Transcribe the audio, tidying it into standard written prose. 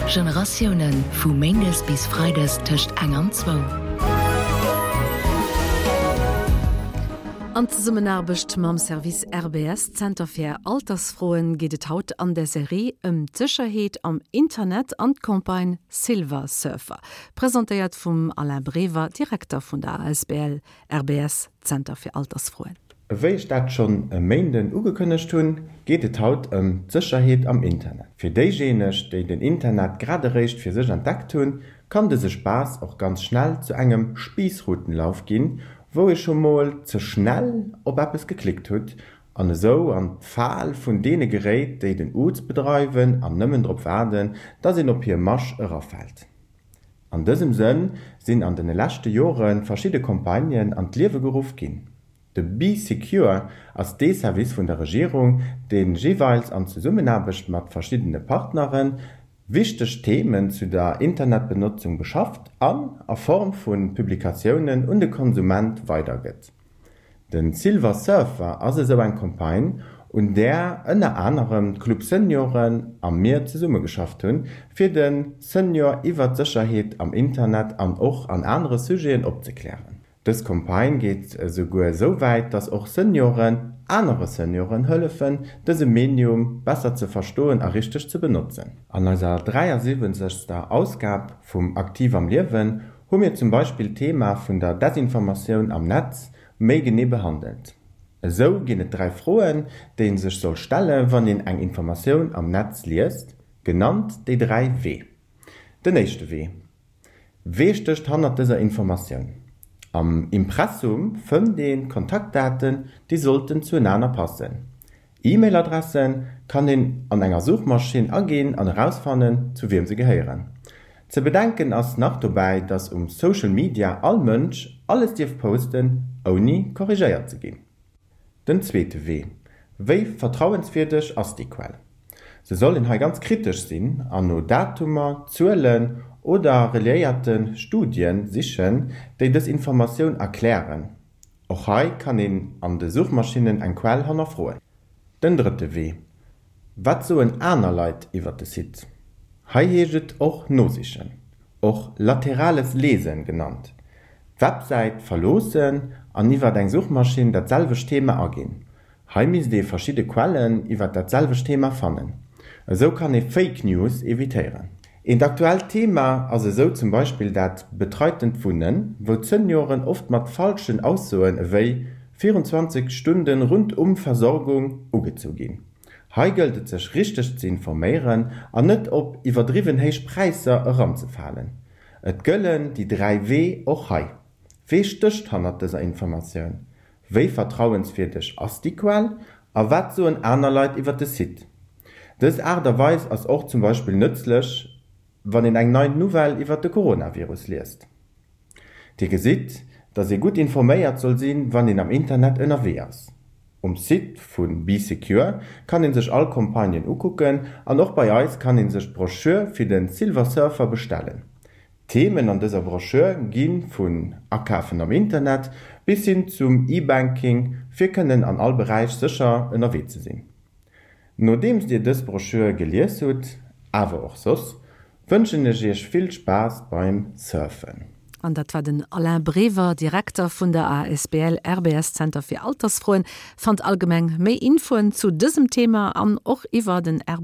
Generatiounen, vu méindes bis freides tëscht eng an zwou. An Zesummenaarbecht mam Service RBS, Zenter fir Altersfroen, geet et haut an der Serie ëm d'Sécherheet am Internet an d'Campagne Silver Surfer. Presentéiert vum Alain Brever, Direkter vun der asbl RBS, Zenter fir Altersfroen. Ewéi ech dat schonn e Méinden ugekënnegt hunn, geet et haut ëm d'Sécherheet am Internet. Fir déijéineg, déi den Internet grad eréischt fir sech entdeckt hunn, kann dëse Spaass och ganz schnell zu engem Spiissrutenlauf ginn, wou ee scho mol ze schnell op eppes geklickt hutt an esou an d'Fal vun deene geréit, déi den Uz bedreiwen an nëmmen drop waarden, dass een op hir Masch erafält. An dësem Sënn sinn an de leschte Jore verschidde Campagnen an d'Liewe geruff ginn. De Bee Secure ass dee Service vun der Regierung, dee jeeweils an Zesummenaarbecht mat verschiddene Partnere wichteg Themen zu der Internetbenotzung beschafft an a Form vu Publikatiounen un de Konsument weidergëtt. De Silver Surfer ass esou eng Campagne, un där ënner anerem d'Club Senioren a mir zesummegeschafft hunn, fir de Senior iwwer d'Sécherheet am Internet an och an anere Sujeten opzeklären. Dës Campagne geet esouguer esou wäit, dass och Senioren anere Senioren hëllefen, dëse Medium besser ze verstoen a richteg ze benotzen. An eiser 73. Ausgab vum Aktiv am Liewen hu mir zum Beispill d'Thema vun der Desinformatioun am Netz méi genee behandelt. Esou ginn et 3 Froen, déi een sech soll stelle wann een eng Informatioun am Netz liest, genannt déi 3 W. Den éischte W, Wee stécht hannert dëser Informatioun? Am Impressum fënnt een d'Kontaktdaten, déi sollten zuenaner passen. E-Mail-Adresse kann een an enger Suchmaschinn aginn an erausfannen, zu wiem se gehéieren. Ze bedenken ass nach dobäi, dass um Social Media all Mënsch alles dierf posten, ouni korrigéiert ze ginn. Den zweete Wee, Wéi vertrauenswierdeg ass déi Quell? Se soll een hei ganz kritesch sinn an no Datumer, Zuelen oder reliéierte Studien sichen, déi dës Informatioun erklären. Och hei kann een an de Suchmaschinnen eng Quell hannerfroen. Den drëtte Wee, Wat soen aner Leit iwwer de Site? Hei heescht et och nosichen, och laterales Lesen genannt, d'Websäit verloossen an iwwer eng Suchmaschinn dat selwecht Thema aginn. Hei misst ee verschidde Quellen iwwer dat selwecht Thema fannen. Esou kann ee Fake News evitéieren. Eent aktuellt Thema ass esou zum Beispill dat betreitent Wunnen, wou d'Senioren oft mat falschen Aussoen ewéi 24 Stunden rundum Versorgung ugezu ginn. Hei gëllt et sech richteg ze informéieren an net op iwwerdriwwen héich Präisser eranzefalen. Et gëllen déi 3 W och hei. Wee stécht hannert dëser Informatioun? Wéi vertrauenswierdeg ass déi Quell a wat soen aner Leit iwwer de Site? Dës Aart a Weis ass och zum Beispill nëtzlech, wann een eng nei Nouvelle iwwer de Coronavirus liest. Dir gesitt, dass ee gutt informéiert soll sinn, wann een am Internet ënnerwee ass. Um Site vu Bee Secure kann ee sech all Campagnen ukucken an och bei eis kann ee sech d'Brochure fir de Silver Surfer bestellen. D'Themen an dëser Broschür gi vun Akafen am Internet bis hin zum E-Banking, fir kënnen an all Beräich sécher ënnerwee ze sinn. Nodeems Dir dës Broschür gelies hutt, awer och soss, wënschen ech Iech vill Spaass beim Surfen. An dat war den Alain Brever, Direkter vun der asbl RBS Zenter fir Altersfroen. Fannt allgemeng méi Infoen zu dësem Thema an och iwwer den RBS.